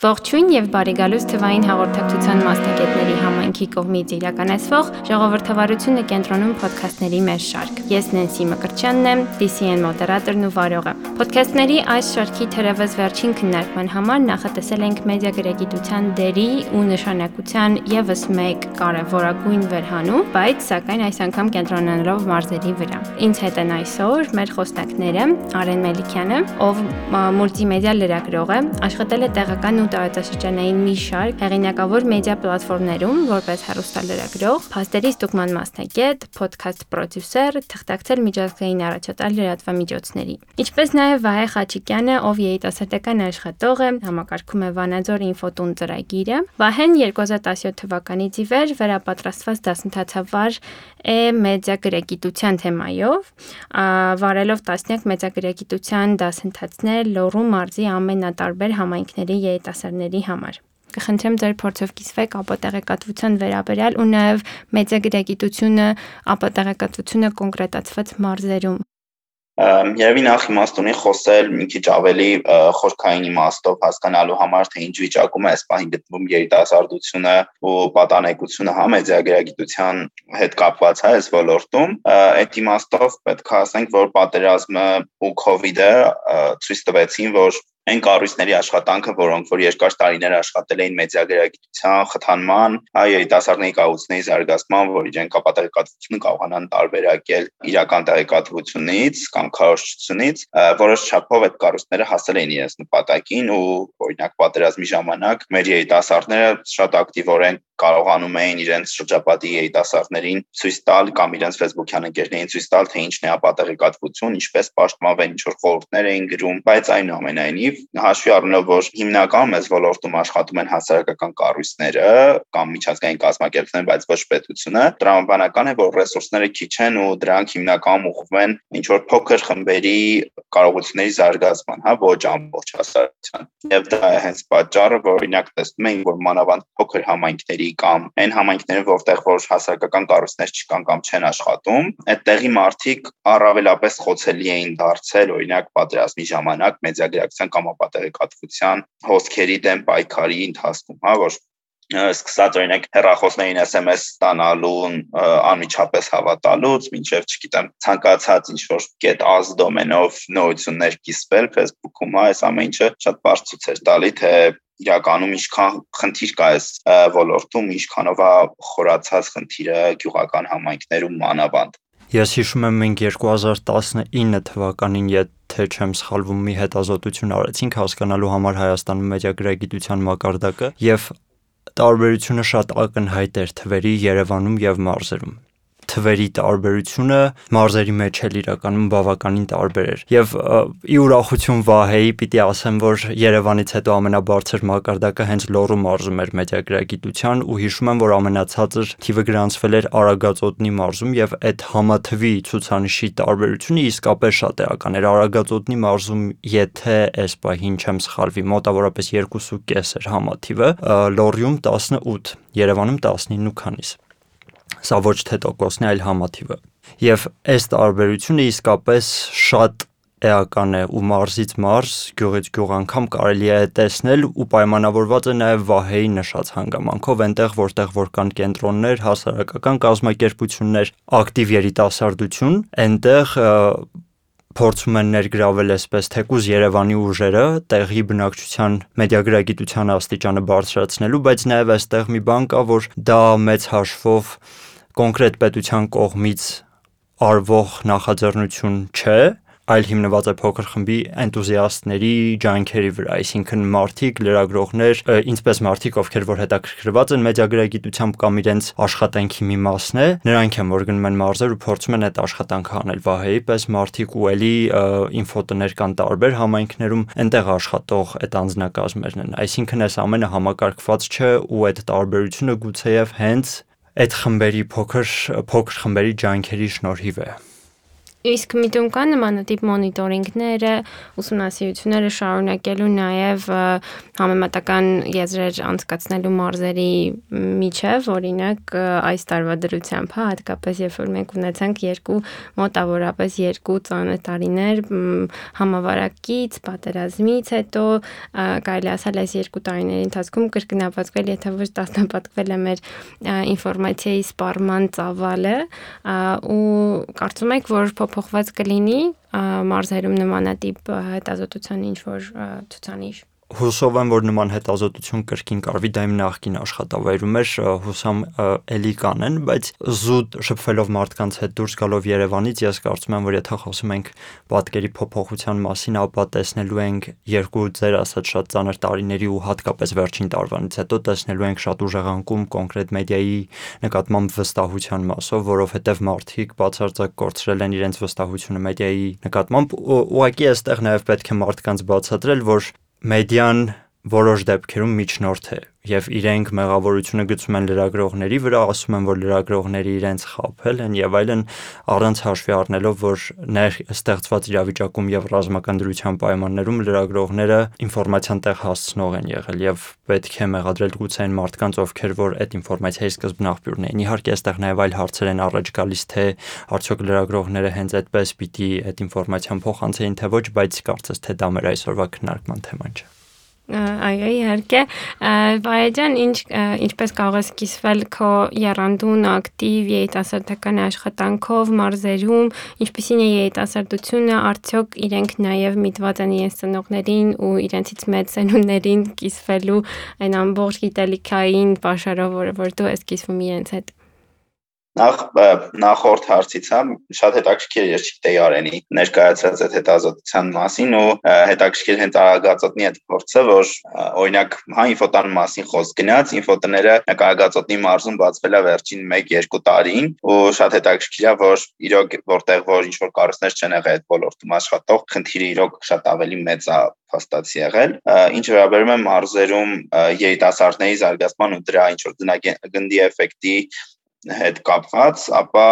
Ողջույն եւ բարի գալուստ թվային հաղորդակցության մասնագետների համայնքի կողմից իրականացվող ժողովրդավարությունը կենտրոնում ոդքասթների մեր շարք։ Ես Նենսի Մկրտչյանն եմ, DCN մոդերատորն ու վարողը։ Ոդքասթների այս շարքի թերևս վերջին քննարկման համար նախատեսել ենք մեդիա գրագիտության դերի ու նշանակության եւս մեկ կարևորագույն վերհանում, բայց սակայն այս անգամ կենտրոնանալով մարզերի վրա։ Ինձ հետ են այսօր մեր խոսնակները Արեն Մելիքյանը, ով մուլտիմեդիա լրագրող է, աշխատել է տեղական ու տարածաշրջանային մի շարք հեղինակավոր մեդիա պլատֆորմներում որպես հեռուստալրագրող, փաստերի ստուգման մասնագետ, փոդքասթ պրոդյուսեր, թղթակցել միջազգային առաջատար լրատվամիջոցների։ Ինչպես նաև Վահե Խաչիկյանը, ով երիտասարդական աշխատող է, համակարգում է Վանաձոր ինֆոտուն ծրագիրը։ Վահեն 2017 թվականից ի վեր վերապատրաստված դասընթացավար է մեդիա գրագիտության թեմայով, վարելով տասնյակ մեդիա գրագիտության դասընթացներ Լոռու մարզի ամենատարբեր համայնքների երիտասարդների համար։ Կխնդրեմ ձեր փորձով կիսվեք ապատեղեկատվության վերաբերյալ ու նաև մեդիա գրագիտությունը, ապատեղեկատվությունը կոնկրետացված մարզերում։ Երևի նախ իմաստունի խոսել մի քիչ ավելի խորքային իմաստով հասկանալու համար, թե ինչ վիճակում է այս պահին գտնվում երիտասարդությունը ու պատանեկությունը մեդիա գրագիտության հետ կապված այս ոլորտում, այդ իմաստով պետք է ասենք, որ պատերազմը ու COVID-ը ցույց տվեցին, որ այն կառույցների աշխատանքը, որոնք որ երկար տարիներ աշխատել էին մեդիա գրագիտության խթանման, երիտասարդների կարողությունների զարգացման, որ իրենք ապատեղեկատվությունը կարողանան տարբերակել իրական տեղեկատվությունից կամ քարոզչությունից, որոշ չափով այդ կառույցները հասել էին իրենց նպատակին ու օրինակ պատերազմի ժամանակ մեր երիտասարդները շատ ակտիվորեն կարողանում էին իրենց շրջապատի երիտասարդներին ցույց տալ կամ իրենց Facebook-յան ընկերներին ցույց տալ, թե ինչն է ապատեղեկատվություն, ինչպես պաշտպանվել, ինչ որ խորհուրդներ էին գրում, բայց այնուամենայնիվ հաշվի առնելով, որ հիմնականում այս ոլորտում աշխատում են հասարակական կառույցները կամ միջազգային կազմակերպությունները, բայց ոչ պետությունը, տրամաբանական է, որ ռեսուրսները քիչ են ու դրանք հիմնականում ուղղվում են ինչ որ փոքր խմբերի կարողությունների զարգացման, ոչ ամբողջ հասարակության։ Եվ դա է հենց պատճառը, որ օրինակ տեսնում ենք, որ մանավանդ փոքր համայնքների կամ այն համայնքները, որտեղ որ հասարակական կառույցներ չկան կամ չեն աշխատում, այդտեղի մարդիկ առավելապես խոցելի էին դարձել օրինակ պատերազմի ժամանակ մեդիա գրագիտության կամ ապատեղեկատվության հոսքերի դեմ պայքարի ընթացքում, որ սկսած օրինակ հեռախոսներին SMS ստանալուն անմիջապես հավատալուց, մինչև չգիտեմ ցանկացած ինչ-որ .az դոմենով նորություններ կիսվել Facebook-ում, այս ամեն ինչը շատ բարձ ցույց էր տալի, թե իրականում ինչքան խնդիր կա այս ոլորտում, ինչքանով է խորացած խնդիրը գյուղական համայնքներում մանավանդ։ Ես հիշում եմ, մենք 2019 թվականին, եթե չեմ սխալվում, մի հետազոտություն արեցինք հասկանալու համար Հայաստանում մեդիա գրագիտության մակարդակը եւ տարբերությունը շատ ակնհայտ էր թվերի Երևանում եւ մարզերում։ Թվերի տարբերությունը մարզերի մեջ էլ իրականում բավականին տարբեր էր։ Եվ ի ուրախություն Վահեի պիտի ասեմ, որ Երևանից հետո ամենաբարձր մակարդակը հենց Լոռու մարզում էր մեդիա գրագիտության ու հիշում եմ, որ ամենացածր թիվը գրանցվել էր Արագածոտնի մարզում եւ այդ համաթվի ցուցանիշի տարբերությունը իսկապես շատ էական էր։ Արագածոտնի մարզում, եթե այս պահին չեմ սխալվի, մոտավորապես 2.5 էր համաթիվը, Լոռիում 18, Երևանում 19 ու քանիս։ Սա ոչ թե տոկոսն է, այլ համաթիվը։ Եվ այս տարբերությունը իսկապես շատ էական է ու մարզից մարզ, գյուղից գյուղ անգամ կարելի է տեսնել ու պայմանավորված է նաև Վահեի նշած հանգամանքով, այնտեղ որտեղ որ կան կենտրոններ, հասարակական կազմակերպություններ, ակտիվ երիտասարդություն, այնտեղ փորձում են ներգրավել այսպես թեկուզ Երևանի ուժերը տեղի բնակչության մեդիա գրագիտության աստիճանը բարձրացնելու, բայց նաև այստեղ մի բան կա, որ դա մեծ հաշվով կոնկրետ պետության կողմից արվող նախաձեռնություն չէ, այլ հիմնված է փոքր խմբի էնտուզիաստների ջանքերի վրա, այսինքն մարդիկ, լրագրողներ, ինչպես մարդիկ, ովքեր որ հետաքրքրված են մեդիա գրագիտությամբ կամ իրենց աշխատանքի մի մասն է, նրանք են որ գնում են մարզեր ու փորձում են այդ աշխատանքը անել Վահեի պես մարդիկ ու էլի ինֆոտներ կան տարբեր համայնքներում, այնտեղ աշխատող այդ անձնակազմերն են, այսինքն այս ամենը համակարգված չէ ու այդ տարբերությունը գուցեև հենց այդ խմբերի փոքր խմբերի ջանքերի շնորհիվ է։ Իսկ միտում կան նմանատիպ մոնիտորինգները, ուսումնասիրությունները շարունակելու նաև համեմատական եզրեր անցկացնելու մարզերի միջև, օրինակ այս տարվա դրությամբ, հատկապես երբ որ մենք ունեցանք մոտավորապես 2 ծանր տարիներ համավարակից, պատերազմից հետո, կարելի ասել այս 2 տարիների ընթացքում կրկնապատկվել, եթե ոչ տասնապատկվել է մեր ինֆորմացիայի սպառման ծավալը, ու կարծում եք, որ փոփոխված կլինի մարզերում նմանատիպ հետազոտության ինչ-որ ցուցանիշ։ Հուսով եմ, որ նման հետազոտություն կրկին կարվի, դա իմ նախկին աշխատավայրում էր, հուսամ էլի կանեն, բայց զուտ շփվելով մարդկանց հետ դուրս գալով Երևանից, ես կարծում եմ, որ եթե խոսում ենք պատկերի փոփոխության մասին, ապա տեսնելու ենք 2 ձեր ասած շատ ծանր տարիների ու հատկապես վերջին տարվանից հետո տեսնելու ենք շատ ուժեղանկում կոնկրետ մեդիայի նկատմամբ վստահության մասով, որովհետև մարդիկ բացարձակ կորցրել են իրենց վստահությունը մեդիայի նկատմամբ, ուղղակի այստեղ նաև պետք է մարդկանց բացատրել, որ մեդիան որոշ դեպքերում միջնորդ է եւ իրենք մեղավորությունը գցում են լրագրողների վրա, ասում են, որ լրագրողները իրենց խաբել են եւ այլն, առանց հաշվի առնելով, որ ստեղծված իրավիճակում եւ ռազմական դրության պայմաններում լրագրողները ինֆորմացիան տեղ հասցնող են եղել եւ պետք է մեղադրել գուցե այն մարդկանց, ովքեր որ այդ ինֆորմացիայի սկզբն աղբյուրն էին։ Իհարկե, այստեղ նաեւ այլ հարցեր են առաջ գալիս, թե արդյոք լրագրողները հենց այդպես պիտի այդ ինֆորմացիան փոխանցեին, թե ոչ, բայց կարծես թե դա մեր այսօրվա քննարկման թեման չէ։ Այո, իհարկե, Վահե ջան, ինչպես կարող ես կիսվել քո եռանդուն ակտիվ երիտասարդական աշխատանքով մարզերում, ինչպիսին է երիտասարդությունը, արդյոք իրենք նաև միտված են իրենց ծնողներին ու իրենցից մեծ սերունդներին կիսվելու այն ամբողջ գիտելիքային պաշարով, որ դու ես կիսվում իրենց հետ։ Նախորդ հարցից շատ հետաքրքիր ես չգիտեի Արենի ներկայացրած այդ հետազոտության մասին ու հետաքրքիր հենց արագածոտնի այդ փորձը, որ օրինակ ինֆոտան մասին խոսք գնաց, ինֆոտները նկարագածոտնի մարզում բացվել է վերջին 1-2 տարին ու շատ հետաքրքիր է, որ իրոք որտեղ որ ինչ որ կառույցներ չեն եղել այդ ոլորտում աշխատող, խնդիրը իրոք շատ ավելի մեծ է փաստացի եղել։ Ինչ վերաբերում է մարզերում երիտասարդների զարգացման ու դրա ինչ որ գնդի էֆեկտի հետ կապված, ապա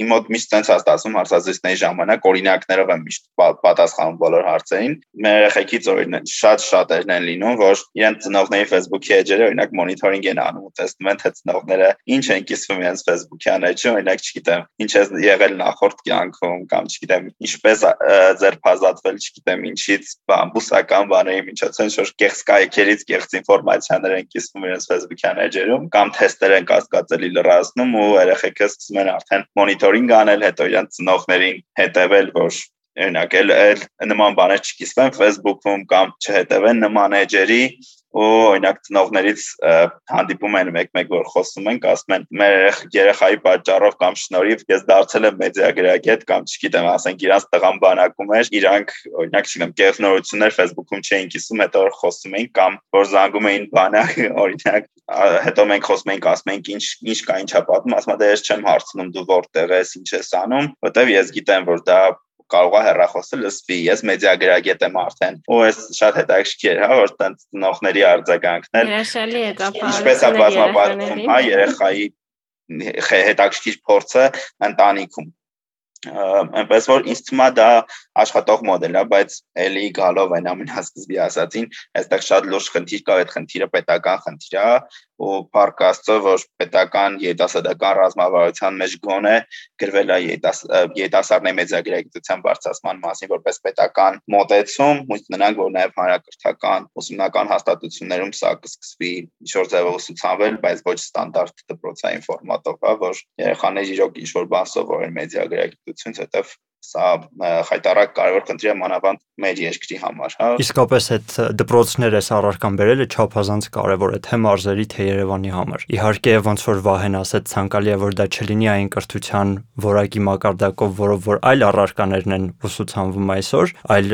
իմ մոտ միշտ sense հաստատում հարցազրույցների ժամանակ օրինակներով եմ միշտ պատասխանում բոլոր հարցերին։ Մեր երեխեքից օրինակ շատ են լինում, որ իրենց ծնողների Facebook-ի էջերը օրինակ մոնիթորինգ են անում ու տեսնում են, թե ծնողները ինչ են կիսվում իրենց Facebook-յան էջում, օրինակ չգիտեմ, ինչ է եղել նախորդ կյանքում կամ չգիտեմ, ինչպես ձերբազատվել, չգիտեմ, ինչից բուսական բաների միջոցով ինչ-որ կեղծ կայքերից կեղծ ինֆորմացիաներ են կիսվում իրենց Facebook-յան էջերում կամ թեստեր են կասկածելի լրացնում ու երեխեքը սկսում են արդեն մոնիթորինգ անել, հետո իրենց ծնողներին հետևել, որ օրինակ նման բաներ չկիսվեն Facebook-ում կամ չհետևեն նման էջերի ու օրինակ ծնողներից հանդիպում են մեկ-մեկ, որ խոսում են, ասում են մեր երեխայի պատճառով կամ շնորհիվ ես դարձել եմ մեդիագրագետ կամ չգիտեմ, ասենք իրանց տղան բանակում էր, իրանք օրինակ չգիտեմ, կեղնորություններ Facebook-ում չէին կիսում, հետո խոսում էին կամ որ զանգում էին բանակ, օրինակ հետո մենք խոսում ենք, ասում ենք ինչ կա, ինչա պատմում, ասում եմ, ես չեմ հարցնում դու որտեղ ես, ինչ ես անում, որտեվ ես գիտեմ, որ դա կարող է հեռախոսը լսվի, ես մեդիագրագետ եմ արդեն, ու ես շատ հետաքրքիր է, որ տենց ծնողների արձագանքն էլ Հրաշալի է դա, ինչպես է բազմապատկում, երեխայի հետաքրքիր փորձը ընտանիքում։ Այնպես որ ինձ թվում է դա աշխատող մոդել է, բայց էլի գալով այն ամենասկզբի ասածին, այստեղ շատ լուրջ խնդիր կա, այդ խնդիրը պետական խնդիր է ու փառք Աստծո, որ պետական երիտասարդական ռազմավարության մեջ գոնե գրվել է երիտասարդների մեդիագրագիտության բարձրացման մասին որպես պետական մոտեցում, հույս ունենանք, որ նաև հանրակրթական ուսումնական հաստատություններում սա կսկսվի ինչ-որ ձևով ուսուցանվել, բայց ոչ ստանդարտ դպրոցային ֆորմատով, որ երեխաները իրոք ինչ-որ բան սովորեն մեդիագրագիտությունից, հետև սա խայտարակ կարևոր խնդիր է մանավանդ մեր երկրի համար, հա։ Իսկապես այդ դպրոցները առարկան բերելը չափազանց կարևոր է թե մարզերի, թե Երևանի համար։ Իհարկե, ոնց որ Վահեն ասաց, ցանկալի է, որ դա չլինի այն կրթության որակի մակարդակով, որով որ այլ առարկաներն են ուսուցանվում այսօր, այլ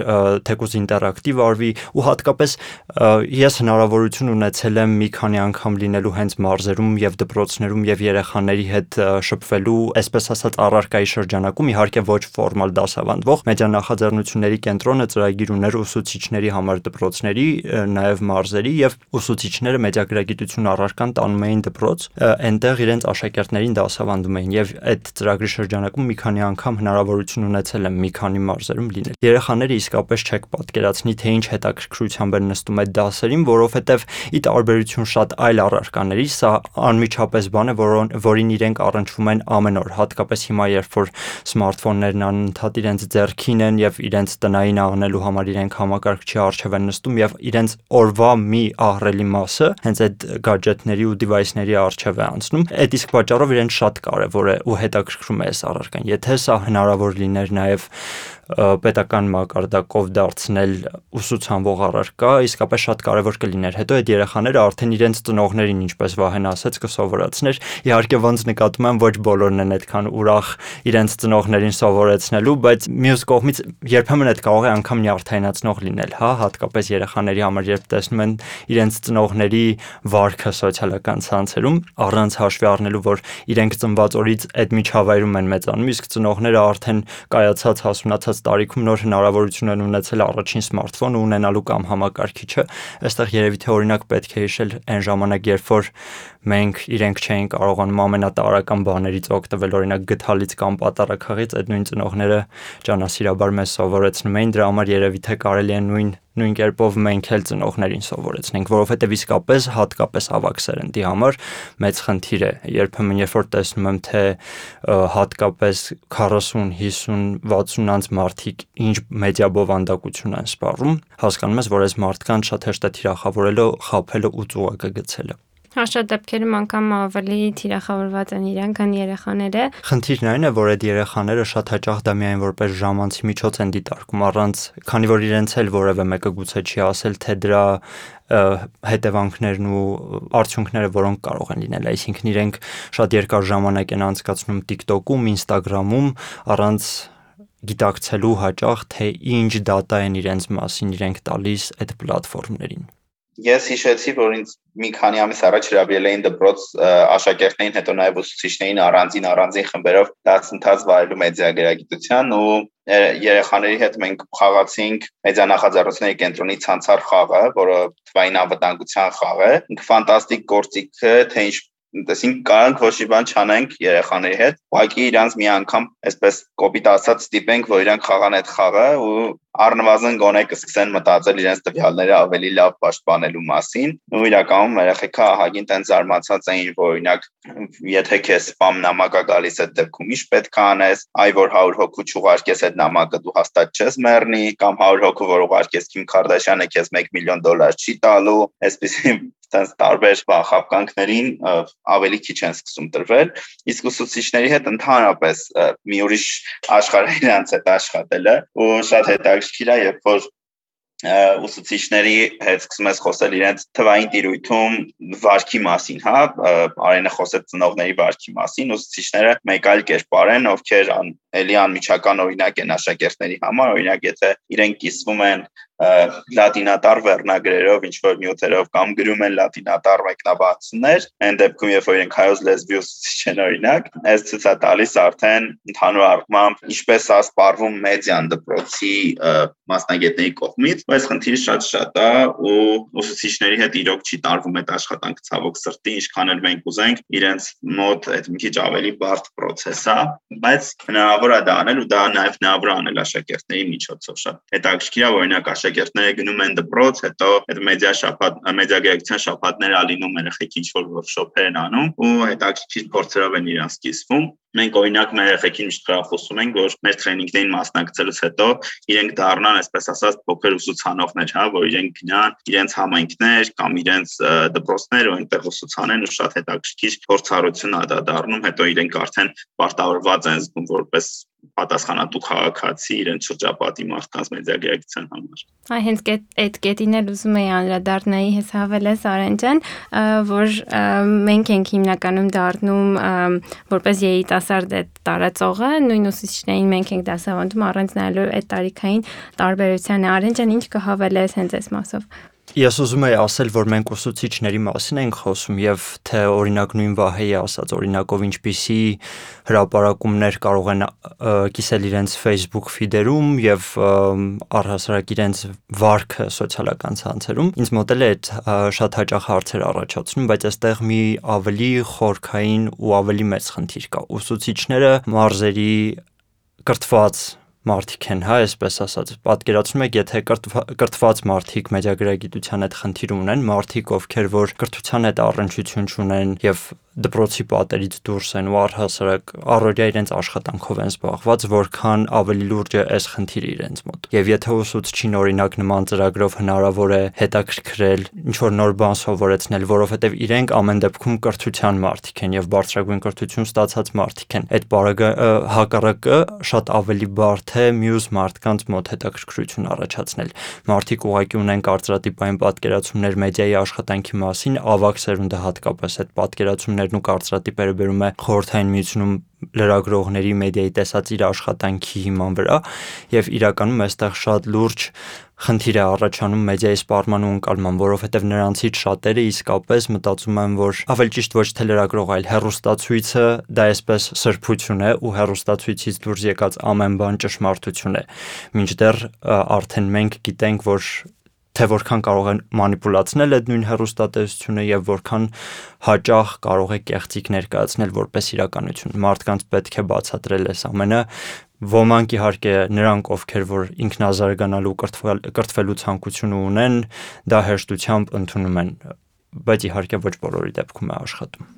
թեկուզ ինտերակտիվ արվի ու հատկապես ես հնարավորություն ունեցել եմ մի քանի անգամ լինելու հենց մարզերում եւ դպրոցներում եւ երեխաների հետ շփվելու, այսպես ասած, առարկայի շրջանակում, իհարկե ոչ ֆորմալ նորմալ դասավանդվող մեդիանախաձեռնությունների կենտրոնը ծրագիր ուներ ուսուցիչների համար դպրոցների, նաև մարզերի եւ ուսուցիչները մեդիագրագիտություն առարկան տանում էին դպրոց, այնտեղ իրենց աշակերտներին դասավանդում էին եւ այդ ծրագրի շրջանակում մի քանի անգամ հնարավորություն ունեցել եմ մի քանի մարզերում լինել։ Երեխաները իսկապես չեք պատկերացնի, թե ինչ հետաքրքրությամբ են նստում այդ դասերին, որովհետեւ ի տարբերություն շատ այլ առարկաների, սա անմիջապես բան է, որին իրենք առնչվում են ամեն օր, հատկապես հիմա, երբ որ սմարթֆոններն անընդհատ իրենց ձեռքին են եւ իրենց տնային անելու համար իրենք համակարգչի առջև են նստում եւ իրենց օրվա մի ահռելի մասը հենց այդ գadgetների ու device-ների առջև է անցնում։ Այդ իսկ պատճառով իրենց շատ կարեւոր է ու հետաքրքրում է այս առարկան։ Եթե սա հնարավոր լիներ նաեւ պետական մակարդակով դարձնել ուսուցանվող առարկա, իսկապես շատ կարևոր կլիներ։ Հետո այդ երեխաները արդեն իրենց ծնողներին, ինչպես Վահեն ասաց, կսովորեցներ։ Իհարկե ոնց նկատում եմ, ոչ բոլորն են այդքան ուրախ իրենց ծնողներին սովորեցնելու, բայց մյուս կողմից երբեմն այդ կարող է անգամ նյարդայնացնող լինել, հա, հատկապես երեխաների համար, երբ տեսնում են իրենց ծնողների վարքը սոցիալական ցանցերում, առանց հաշվի առնելու, որ իրենք ծնված օրից այդ միջավայրում են մեծանում, իսկ ծնողները արդեն կայացած հասունացած տարիքում նոր հնարավորություն են ունեցել առաջին սմարթֆոնը ունենալու կամ համակարգիչը։ Այստեղ երևի թե օրինակ պետք է հիշել այն ժամանակ, երբ որ մենք իրենք չէին կարողանում ամենատարրական բաներից օգտվել, օրինակ գդալից կամ պատարագաղից, այդ նույն ծնողները ջանասիրաբար մեզ սովորեցնում էին, դրա համար երևի թե կարելի է նույն կերպով մենք էլ ծնողներին սովորեցնենք, որովհետև իսկապես հատկապես ավագ սերնդի համար մեծ խնդիր է։ Երբեմն երբ որ տեսնում եմ, թե հատկապես 40, 50, 60 անց մարդիկ ինչ մեդիա բովանդակություն են սպառում, հասկանում ես, որ այս մարդկանց շատ հեշտ է թիրախավորելը, խաբելը ու ծուղակը գցելը։ Շատ դեպքերում անգամ ավելի թիրախավորված են իրենք, քան երեխաները։ Խնդիրն այն է, որ այդ երեխաները շատ հաճախ դա միայն որպես ժամանցի միջոց են դիտարկում, առանց, քանի որ իրենց էլ որևէ մեկը գուցե չի ասել, թե դրա հետևանքներն ու արդյունքները որոնք կարող են լինել, այսինքն իրենք շատ երկար ժամանակ են անցկացնում TikTok-ում, Instagram-ում, առանց գիտակցելու հաճախ, թե ինչ դատա են իրենց մասին իրենք տալիս այդ պլատֆորմներին։ Ես հիշեցի, որ ինձ մի քանի ամիս առաջ հրավիրել էին դպրոց աշակերտներին, հետո նաև ուսուցիչներին առանձին խմբերով դասընթաց վարելու մեդիագրագիտության ու երեխաների հետ մենք խաղացինք մեդիանախաձեռնությունների կենտրոնի ցանցար խաղը, որը թվային անվտանգության խաղ է։ Ֆանտաստիկ գործիք է, թե ինչ տեսինք կարանք ոչ մի բան չանենք երեխաների հետ, ուղղակի իրանց մի անգամ այսպես կոպիտ ասած ստիպենք, որ իրանք խաղան այդ խաղը ու առնվազն գոնե կսկսեն մտածել իրենց տվյալները ավելի լավ պաշտպանելու մասին։ Ու իրականում երեխեքը ահագին տենց զարմացած էին, որ օրինակ եթե քեզ սպամ նամակ է գալիս այդ դեպքում ինչ պետք է անես, այ որ 100 հոգու չուղարկես այդ նամակը դու հաստատ չես մեռնի, կամ 100 հոգու որ ուղարկես Քիմ Քարդաշյանը քեզ $1 միլիոն չի տալու, այսպեսի տենց տարբեր խաբկանքներին ավելի քիչ են սկսում տրվել, իսկ ուսուցիչների հետ ընդհանրապես մի ուրիշ աշխարհ իրանց հետ աշխատելը ու շատ հետաքրքիր է, երբ որ ուսուցիչների հետ սկսում ես խոսել իրենց թվային տիրույթում վարքի մասին, հա, Արենը խոսեց ծնողների վարքի մասին, ուսուցիչները մեկ այլ կերպար են, ովքեր էլի անմիջական օրինակ են աշակերտների համար, օրինակ եթե իրենք կիսվում են լատինատար վերնագրերով, ինչ որ նյութերով կամ գրում են լատինատար մեկնաբանություններ, այն դեպքում երբ որ իրենք հայոց լեզվի ուսուցիչ են օրինակ, այս ցույց է տալիս արդեն ընդհանուր առմամբ ինչպես է սպառվում մեդիան դպրոցի մասնագետների կողմից, բայց խնդիրը շատ է ու ուսուցիչների հետ իրոք չի տարվում այդ աշխատանքը ցավոք սրտի, ինչքան էլ մենք ուզենք, իրենց մոտ այդ մի քիչ ավելի բարդ process է, բայց հնարավոր է դա անել ու դա նաև հնարավոր է անել աշակերտների միջոցով շատ հետաքրքիր է, օրինակ աշակերտները գնում են դպրոց, հետո այդ մեդիագրագիտության շաբաթները ալինում երեխեքի ինչ-որ workshop-եր են անում ու հետաքրքիր փորձերով են իրանց կիսվում։ Մենք օրինակ մեր երեխեքին միշտ խրախուսում ենք, որ մեր տրեյնինգներին մասնակցելուց հետո իրենք դառնան, այսպես ասած, փոքր ուսուցանողներ, հա, որ իրենք գնան իրենց համայնքներ կամ իրենց դպրոցներ ու այնտեղ ուսուցանեն ու շատ հետաքրքիր փորձառություն է դա դառնում, հետո իրենք արդեն պարտավորված են զգում որպես պատասխանատու քաղաքացի իրենց շրջապատի մարդկանց մեդիագրագիտության համար։ Այ հենց այդ կետին էլ ուզում էի անդրադառնայի հավելես Արեն ջան, որ մենք ենք հիմնականում դառնում որպես երիտասարդ այդ տարածողը, նույն ուսուցիչներին մենք ենք դասավանդում առանց նայելու այդ տարիքային տարբերությանը։ Արեն ջան, ինչ կհավելես հենց այս մասով։ Ես ուզում եի ասել, որ մենք ուսուցիչների մասին ենք խոսում եւ թե օրինակ նույն Վահեի ասած օրինակով ինչպիսի հրապարակումներ կարող են կիսել իրենց Facebook feed-երում եւ առհասարակ իրենց վարքը սոցիալական ցանցերում։ Ինձ մոտ էլ է շատ հաճախ հարցեր առաջացնում, բայց այստեղ մի ավելի խորքային ու ավելի մեծ խնդիր կա։ Ուսուցիչները մարզերի կրթված մարդիկ են, հա, այսպես ասած, պատկերացնում եք, եթե կրթված մարդիկ մեդիագրագիտության հետ խնդիր ունեն, մարդիկ, ովքեր որ կրթության հետ առնչություն չունեն եւ դպրոցի պատերից դուրս են ու առհասարակ առօրյա իրենց աշխատանքով են զբաղված, որքան ավելի լուրջ է այս խնդիրը իրենց մոտ։ Եվ եթե ուսուցչին օրինակ նման ծրագրով հնարավոր է հետաքրքրել, ինչ որ նոր բան սովորեցնել, որովհետեւ իրենք ամեն դեպքում կրթության մարդիկ են եւ բարձրագույն կրթություն ստացած մարդիկ են, այդ բառը հակառակը շատ ավելի բարդ է մյուս մարդկանց մոտ հետաքրքրություն առաջացնել։ Մարդիկ ուղղակի ունեն կարծրատիպային պատկերացումներ մեդիայի աշխատանքի մասին, ավագ սերունդը հատկապես այդ պատկերացումներն ու կարծրատիպերը բերում է Խորհրդային Միությունում լրագրողների մեդիայի տեսած իր աշխատանքի հիման վրա եւ իրականում այստեղ շատ լուրջ խնդիր է առաջանում մեդիայի սպառման ու ընկալման, որովհետեւ նրանցից շատերը իսկապես մտածում են, որ ավելի ճիշտ ոչ թե լրագրող, այլ հեռուստացույցը դա այսպես սրբություն է ու հեռուստացույցից դուրս եկած ամեն բան ճշմարտություն է։ Մինչդեռ արդեն մենք գիտենք, որ թե որքան կարող են մանիպուլացնել այդ նույն հեռուստատեսությունը եւ որքան հաճախ կարող է կեղծիք ներկայացնել որպես իրականություն։ Մարդկանց պետք է բացատրել այս ամենը։ Ոմանք իհարկե նրանք, ովքեր որ ինքնազարգանալու կրթվելու ցանկություն ունեն, դա հեշտությամբ ընդունում են, բայց իհարկե ոչ բոլորի դեպքում է աշխատում։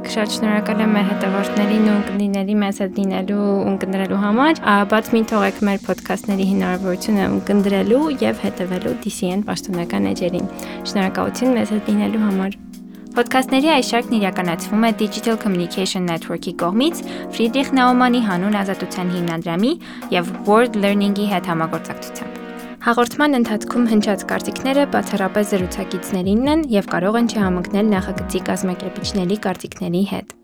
Շատ շնորհակալ եմ մեր հետևորդներին ու ունկնդիրների մեզ հետ լինելու ու ունկնդրելու համար։ Բաց մի թողեք մեր ոդքասթների հնարավորությունը ունկնդրելու եւ հետևելու DCN պաշտոնական էջերին։ Շնորհակալություն մեզ հետ լինելու համար։ Ոդքասթների այս շարքն իրականացվում է Digital Communication Network-ի կողմից Ֆրիդրիխ Նաումանի հանուն ազատության հիմնադրամի եւ World Learning-ի հետ համագործակցությամբ։ Հաղորդման ընթացքում հնչած կարծիքները բացառապես զրուցակիցներինն են եւ կարող են չհամընկնել նախագծի կազմակերպիչների կարծիքների հետ։